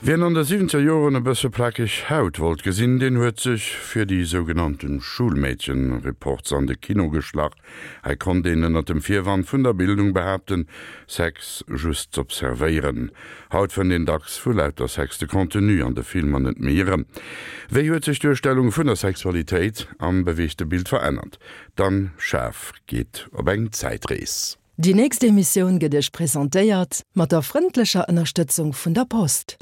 Wien an de siwwenzeger Joren e bësse plakeg Haut wollt gesinn, deen huet sech fir déi sougenannten Schulmädchen-Reports an de Kino geschlach. Hei konnt een ënnert dem Virwand vun der Bildung behaapten, Sex just z'observéieren. Haut fënnt een dacks vu lauter Sex de Contenu an de Filmer net méi erëm. Wéi huet sech d'Duerstellung vun der Sexualitéit am beweegte Bild verännert? D'Anne Schaaf geet op eng Zäitrees. Déi nächst Emissioun gëtt Iech presentéiert mat der frëndlecher Ënnerstëtzung vun der Post.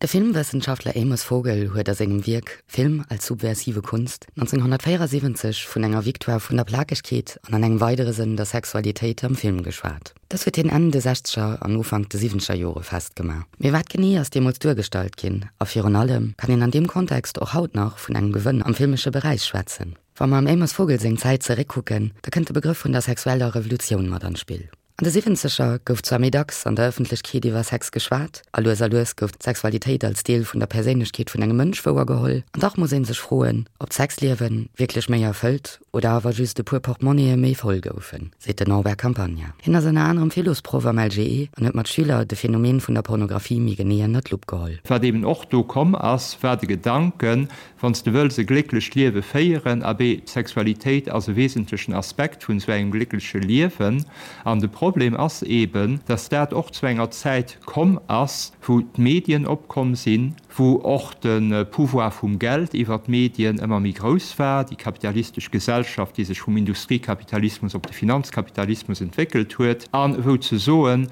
De Filmwëssenschaftler Amos Vogel huet a sengem Wierk Film als subversive Kunst 1974 vun enger Victoire vun der Plakegkeet an an engem weidere Sënn der Sexualitéit am Film geschwat. Dës huet hien Enn de sechzeger an Ufank de siwwenzeger Jore festgemaach. Mee wat genee ass deemools duergestallt ginn? A virun allem, kann een an deem Kontext och haut nach vun engem Gewënn am filmesche Beräich schwätzen? Wa mer am Amos Vogel seng Zäit zeréckkucken, da kënnt de Begrëff vun der sexueller Revolutioun mat an d'Spill. An de Siwwenzeger gouf zwar méi dacks an der Ëffentlechkeet iwwer Sex geschwat, a lues a lues gouf d'Sexualitéit als Deel vun der Perséinlechkeet vun engem Mënsch wouergeholl, an dach muss ee sech froen, ob d'Sexliewe wierklech méi erfëllt oder awer just e puer Portmonnië méi voll goufen, seet den Norbert Campagna. Hien ass ënner anerem Philosproff am LGE an huet mat Schüler de Phänomen vun der Pornografie méi genee ënner d'Lupp geholl. Wat eben och do komm ass, war de Gedanken, Wann s de wëlls e glécklecht Liewe féieren, abee, d'Sexualitéit ass e wesentlechen Aspekt vun esou engem gléckleche Liewen. An de Problem ass eben, dass dat och zu enger Zäit komm ass, wou d'Medien opkomm sinn, wou och de Pouvoir vum Geld iwwer d'Medien ëmmer méi grouss war, déi kapitalistesch Gesellschaft, déi sech vum Industriekapitalismus op de Finanzkapitalismus entwéckelt huet, a wou ze soen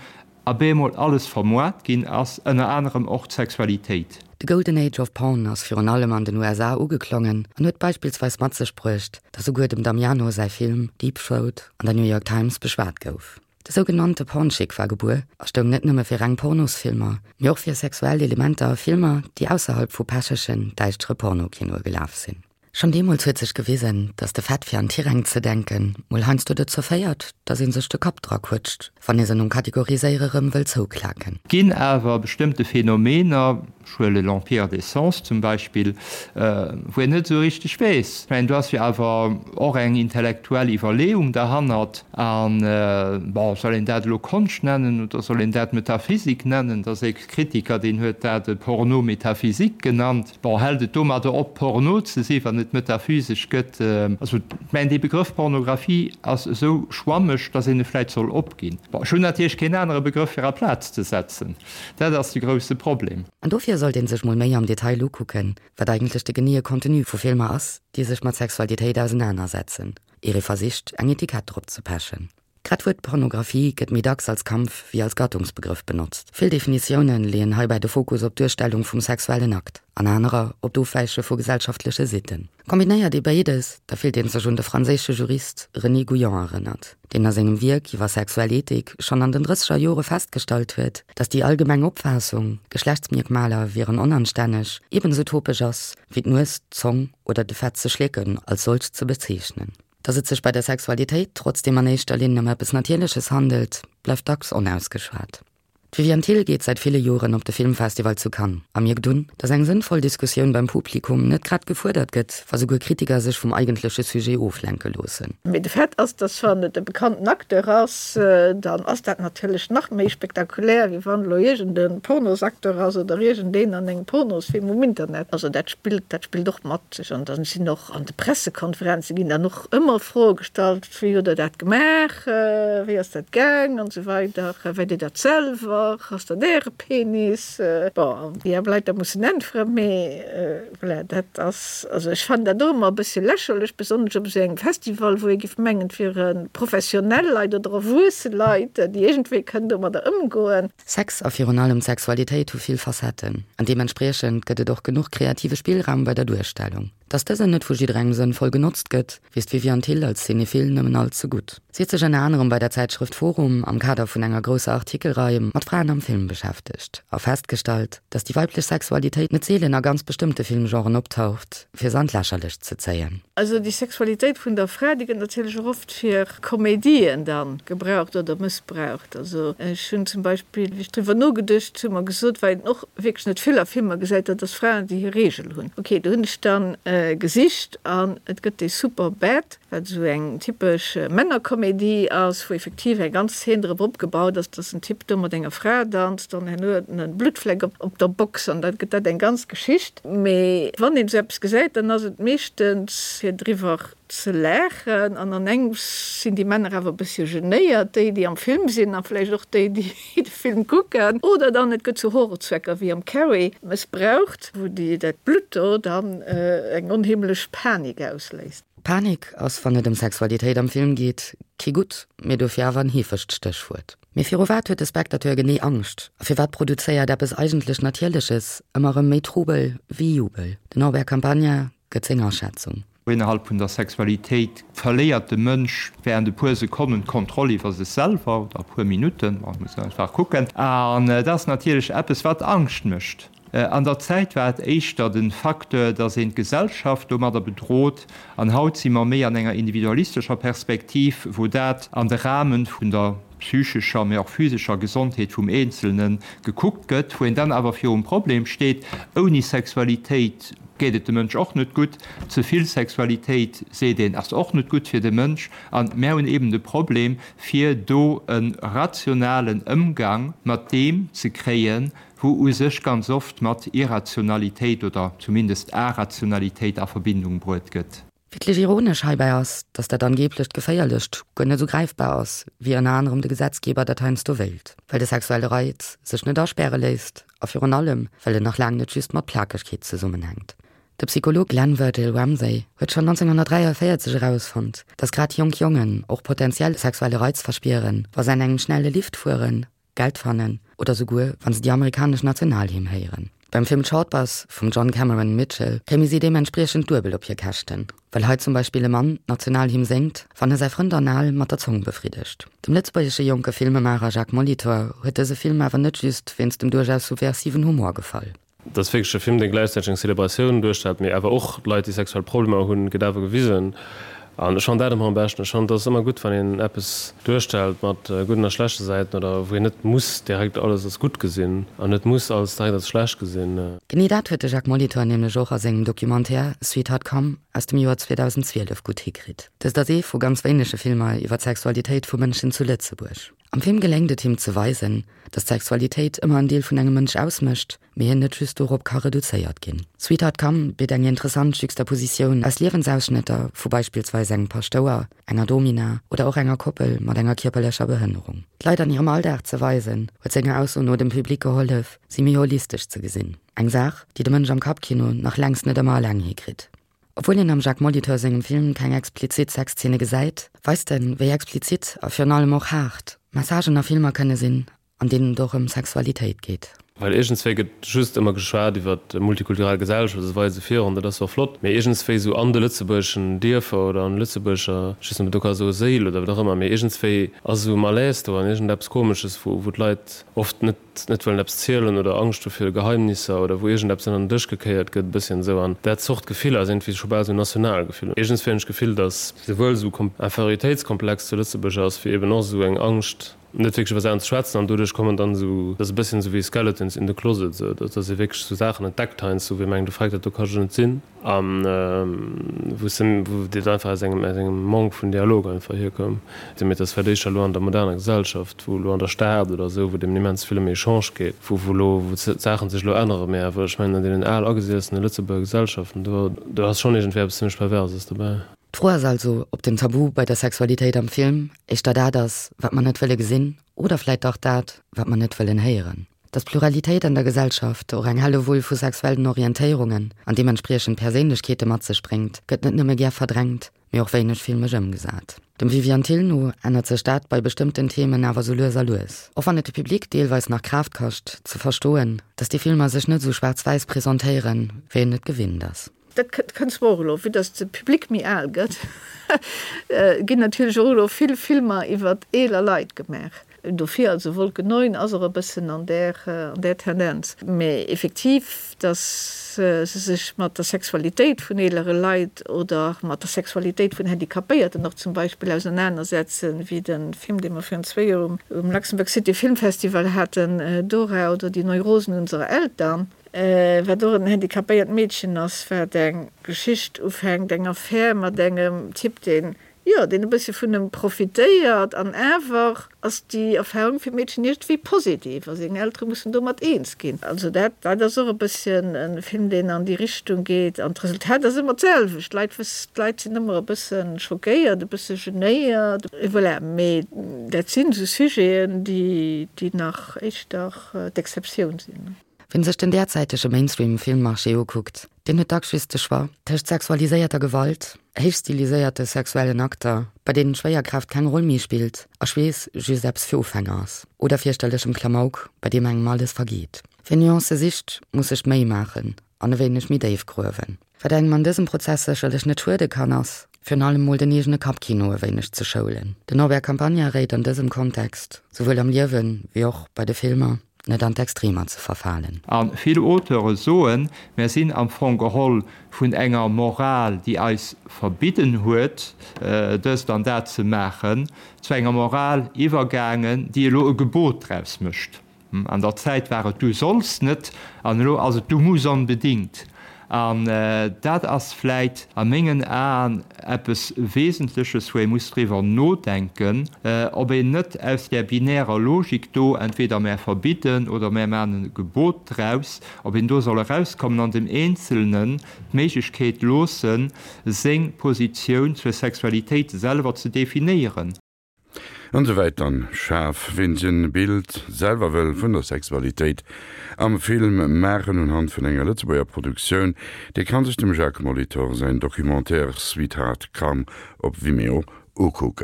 abemol alles vermoart ginn ass, ënner anerem och d'Sexualitéit. De Golden Age of Porn ass virun allem an den USA ugeklongen an huet beispillsweis mat sech bruecht, datt souguer dem Damiano säi Film Deep Throat an der New York Times beschwat gouf. De sougenannte Pornchic war gebuer a stoung net nëmme fir reng Pornosfilmer, mee och fir sexuell Elementer a Filmer, déi ausserhalb vu pechegen, däischtere Pornokinoe gelaf sinn. Schonn deemools huet sech gewisen, datt de Fait fir an Tiräng ze denken, mol heiansdo dozou féiert, datt ee sech de Kapp dra quëtscht, wann ee se nom Kategoriséiere rëm wëll zouklaken. Ginn awer bestëmmte Phänomener, Ech huele L'Empire des sens zum Beispill, wou een net esou richteg weess. Ech mengen, do ass jo awer och eng intellektuell Iwwerleeung derhannert. An, bon, soll een dat elo Konscht nennen oder soll een dat Metaphysik nennen? Et ass e Kritiker, deen huet dat e Porno métaphysique genannt. Bon, hält et domadder op, Porno ze sinn, wann et metaphysesch gëtt? Also, ech mengen, dee Begrëff Pornographie ass esou schwammeg, datt een e vläicht soll opginn. Bon, ech hunn natierlech keen anere Begrëff fir aplaz ze setzen. Dat ass de grousse Problem. An dofir sollt een sech mol méi am Detail ukucken, wat eigentlech de geneeë Contenu vu Filmer ass, déi sech mat Sexualitéit ausenanersetzen, ier ee versicht, eng Etikett drop ze pechen. Grad d'Wuert Pornografie gëtt méi dacks als Kampf wéi als Gattungsbegrëff benotzt. Vill Definitioune leeën heibäi de Fokus op d'Duerstellung vum sexuellen Akt, an anerer op d'Ofwäiche vu gesellschaftleche Sitten. Kombinéiert ee béides, da fillt ee sech un de franséische Jurist René Gouillon erënnert, deen a sengem Wierk iwwer sexuell Ethik schonn an den drësseger Jore festgestallt huet, datt déi allgemeng Opfaassung, Geschlechtsmierkmaler wieren onanstänneg, ebenso topeg ass, wéi d'Nues, d'Zong oder de Fett ze schlécken als solch ze bezeechnen. Datt et sech bei der Sexualitéit trotzdeem an éischter Linn ëm eppes Natierleches handelt, bleift dacks onausgeschwat. D'Viviane Thill geet säit ville Joren op de Filmfestival zu Cannes a mierkt un, datt eng sënnvoll Diskussioun beim Publikum net grad gefuerdert gëtt, wa souguer Kritiker sech vum eigentleche Sujet oflenke loossen. Mee de Fait ass, dass wann et e bekannten Acteur ass, dann ass dat natierlech nach méi spektakulär, wéi wann elo iergend e Pornosacteur ass oder iergendeen an engem Pornosfilm um Internet. Also dat spillt, dat spillt och mat sech. An dann sinn och an de Pressekonferenze ginn dann och ëmmer Froe gestallt, Wéi hutt Der dat gemaach? Wéi ass dat gaang? An esou weider. Weit Dir dat selwer? Ass dat Äre Penis? Bon, déi aarm Leit da mussen äntweren, mee voilà, dat ass, also ech fannen dat och ëmmer e bëssche lächerlech, besonnesch op esou engem Festival, wou ee géif mengen, et wiere professionell Leit oder erwuesse Leit, déi iergendwéi kënnen domadder ëmgoen. Sex a virun allem d'Sexualitéit hu vill Facetten an deementspriechend gëtt et och genuch kreative Spillraum bei der Duerstellung. Dass dësen net vu jidderengem sënnvoll genotzt gëtt, weess d'Viviane Thill als Cinephile nëmmen all ze gutt. Si huet sech ënner anerem bei der Zäitschrëft Forum am Kader vun enger grousser Artikelrei mat Fraen am Film beschäftegt a festgestallt, dass déi weiblech Sexualitéit net seelen a ganz bestëmmte Filmgenren optaucht, fir se an d'Lächerlecht ze zéien. Also déi Sexualitéit vun der Fra, déi gëtt natierlech och oft fir Komedien dann gebraucht oder mëssbraucht. Also ech hunn zum Beispill, wéi ech driwwer nogeduecht hunn, mer gesot, well een och wierklech net vill a Filmer gesäit, dat ass Fraen, déi hir Reegel hunn. Ok, do hunn ech dann gesicht an et gëtt dee Superbad, wat esou eng typesch Männerkomedie ass, wou effektiv eng ganz Zeen drop opgebaut ass, dass en Typ do mat enger Fra danzt an herno huet en e Bluttfleck op der Box an da gëtt dat eng ganz Geschicht. Mee wann een esou eppes gesäit, dann ass et meeschtens fir driwwer ze laachen an an engems sinn déi Männer awer e bëssche genéiert, déi déi am Film sinn a vläicht och déi déi de Film kucken. Oder dann et gëtt zu Horrorzwecker wéi am Carrie mëssbraucht, wou déi dat Blutt do dann eng onheemlech Panik ausléist. Panik ass, wann et ëm Sexualitéit am Film geet, kee gutt, mee dofir awer en heefegt Stéchwuert. Mee viru wat huet de Spectateur genee Angscht? A firwat produzéiert eppes eigentlech Natierleches ëmmer erëm méi Trubel wéi Jubel? Den Norbert Campagna gëtt seng Aschätzung. Innerhalb vun der Sexualitéit verléiert de Mënsch während e puer Sekonnen d'Kontroll iwwer sech selwer, oder e puer Minutten, bon, muss een einfach kucken. An dat ass natierlech eppes, wat Angscht mécht. An der Zäit war et éischter de Facteur, dass een d'Gesellschaft domadder bedrot, an haut si mer méi an enger individualistescher Perspektiv, wou dat an de Rahmen vun der psychescher, mee och physescher Gesondheet vum Eenzelne gekuckt gëtt, wou een dann awer virum Problem steet, ouni Sexualitéit geet et dem Mënsch och net gutt, ze vill Sexualitéit, seet een, ass och net gutt fir de Mënsch. A mär hunn eben de Problem, fir do e rationalen Ëmgang mat deem ze kréien, wou u sech ganz oft mat Irrationalitéit oder zumindest Arationalitéit a Verbindung bruet gëtt. Wierklech ironesch heibäi ass, datt dat angeeblecht Geféierlecht guer net esou gräifbar ass, wéi ënner anerem de Gesetzgeber dat heiansdo wéilt, well de sexuelle Reiz sech net aspäre léisst a virun allem, well en nach laang net just mat Plakegkeet zesummenhänkt. De Psycholog Glenn Virgil Ramsay huet schonn 1943 erausfonnt, datt grad jonk Jongen och potentiell sexuelle Reiz verspieren, wa se an engem schnelle Lift fueren, Geld fannen oder souguer wann se déi amerikanesch Nationalhymn héieren. Beim Film Short Bus vum John Cameron Mitchell kéime si deementspriechend duebel op hir Käschten, well hei zum Beispill e Mann d'Nationalhymn séngt, wann e säi Frënd anal mat der Zong befriddegt. Dem lëtzebuergesche jonke Filmemaacher Jacques Molitor huet dëse Film awer net just wéinst dem duerchaus subversiven Humor gefall. Et ass wierklech e Film, dee gläichzäiteg eng Celebratioun duerstellt, mee awer och d'Leit, déi sexuell Problemer hunn, gëtt awer gewisen. An ech fannen dat ëmmer am beschten. Ech fannen, et ass ëmmer gutt, wann een eppes duerstellt mat gudden a schlechte Säiten oder wou een net muss direkt alles als gutt gesinn an net muss alles direkt als schlecht gesinn. Genee dat huet de Jacques Molitor nämlech och a sengem Documentaire Sweetheart Come aus dem Joer 2012 gutt hikritt. Dëst ass ee vu ganz wéinege Filmer iwwer d'Sexualitéit vu Mënschen zu Lëtzebuerg. Am Film geléngt et him ze weisen, dass d'Sexualitéit ëmmer en Deel vun engem Mënsch ausmécht, mee hien net just dorop ka reduzéiert ginn. Sweetheart Come bitt eng interessant Juxtapositioun aus Liewensausschnëtter vu beispillsweis engem Paschtouer, enger Domina oder och enger Koppel mat enger kierperlecher Behënnerung. D'Leit an hirem Alldag ze weisen, huet senger Ausso no dem Public gehollef, si méi holistesch ze gesinn. Eng Saach, déi de Mënsch am Kappkino nach längst net ëmmer eleng hikritt. Obwuel een am Jacques Molitor sengem Film keng explizit Sexzeene gesäit, weist en, wéi explizit a virun allem och haart Messagen a Filmer kënne sinn, an deenen et och ëm Sexualitéit geet. Well iergendswéi gëtt just ëmmer geschwat iwwer multikulturell Gesellschaft, esou weider esou virun, dat ass och flott, mee iergendswéi esou an de lëtzebuergeschen Dierfer oder an de lëtzebuergescher, ech weess net, ob een do ka soe Séil oder wat och ëmmer, mee iergendswéi ass esou e Malaise do an iergendeppes Komesches, wou d'Leit oft net net wëllen eppes zielen oder Angscht hu fir Geheimnisser oder wou iergendeppes ënner den Dësch gekéiert gëtt, e bësschen esou. An dat Zort Gefiller ass iergendwéi scho bal esou national Gefill. Iergendswéi hunn ech d'Gefill, datt souwuel esou Inférioritéitskomplex zu Lëtzebuerg ass, wéi eben och esou eng Angscht, net wierklech iwwer Saachen ze schwätzen. An doduerch kommen dann esou, dat ass e bësschen esou wéi Skeletons in the closet, esou, datt ee wierklech esou Saachen entdeckt heiansdo, wou ee mengt, oh freck, dat do ka jo net sinn. A wou se, wou dat einfach aus engem, aus engem Manque vun Dialog einfach hierkoum. Mee et ass vläicht éischter elo an der moderner Gesellschaft, wou elo an der Stad oder esou, wou et eben immens vill ëm Echange geet, wou, wou elo, wou d'Saachen sech elo änneren. Mee awer, ech mengen, an deenen al agesiessene Lëtzebuerger Gesellschaften, do, do ass schonn iergendwéi eppes zimmlech Perverses dobäi. D'Fro ass also, ob den Tabu bei der Sexualitéit am Film éischter dat ass, wat mer net wëlle gesinn, oder vläit dach dat, wat mer net wëllen héieren. Dass Pluralitéit an der Gesellschaft och eng Hellewull vu sexuellen Orientéierungen an deementspriechend Perséinlechkeete mat sech bréngt, gëtt net nëmme gär verdrängt, mee och wéineg filmesch ëmgesat. Dem Viviane Thill no ännert sech dat bei bestëmmten Themen awer sou lues a lues. Och wann et de Public deelweis nach Kraaft kascht, ze verstoen, dass déi Filmer sech net sou schwaarz-wäiss presentéieren, wéi een et gewinnt ass. Dat kënnt zwar och elo, vue dass de Public méi al gëtt, ginn natierlech och elo vill Filmer iwwer eeler Leit gemaach. Dofir, also Wolke 9 ass och e bëssen an där, an där Tendenz. Mä effektiv, datt se sech mat der Sexualitéit vun eelere Leit oder mat der Sexualitéit vun Handicapéierten och zum Beispill ausernanersetzen, wéi de Film, dee mer virun zwéi Joer um Luxembourg City Film Festival haten, Dora oder die Neurosen unserer Eltern, wat och en handicapéiert Meedchen ass, wat eng Geschicht ufänkt, eng Affär mat engem Typ, deen Jo, deen e bëssche vun em profitéiert. An awer ass déi Erfahrung fir d'Meedchen iergendwéi positiv a seng Eltere mussen domat eens ginn. Also dat, dat ass och e bësschen e Film, deen an déi Richtung geet. An d'Resultat ass ëmmer d'selwecht, d'Leit wëss, d'Leit sinn ëmmer e bësse schockéiert, e bësse genéiert. Et voilà. Mee dat sinn esou Sujeten, déi, déi nach éischter d'Exceptioun sinn. Wien sech den därzäitege Mainstream-Filmmarché ukuckt, deen huet dacks just de Choix tëscht sexualiséierter Gewalt, héichstiliséierte sexuellen Akter, bei deenen d'Schwéierkraaft keng Roll méi spillt a Schweess just eppes fir Ufänger ass, oder fierchterlechem Klamauk, bei deem engem alles vergeet. Wien Nuancë sicht, muss sech d'Méi maachen an e wéineg méi déif gruewen. Wat engem an dësem Prozess sécherlech net schuede kann, ass virun allem mol den eegene Kappkino e wéineg ze schoulen. Den Norbert Campagna réit an dësem Kontext, souwuel am Liewen wéi och bei de Filmer, net an d'Extremer ze verfalen. A vill Auteure soen, mär sinn am Fong geholl vun enger Moral, déi eis verbidden huet, dëst an dat ze maachen, zu enger Moral iwwergaangen, déi elo e Gebot draus mécht. An der Zäit war et du solls net an elo ass et du muss onbedingt. An dat ass vläit a mengen Aen eppes Wesentleches, wou ee muss driwwer nodenken, ob een net aus där binärer Logik do, entweder mär verbidden oder mär maachen e Gebot draus, ob een do soll erauskommen an dem Eenzelnen d'Méiglechkeet loossen, seng Positioun zur Sexualitéit selwer ze definéieren. An esou wäit dann schaarf. Ween sech en Bild selwer wëll vun der Sexualitéit am Film maachen unhand vun enger Lëtzebuerger Produktioun, dee kann sech dem Jacques Molitor säin Documentaire Sweetheart Come op Vimeo ukucken.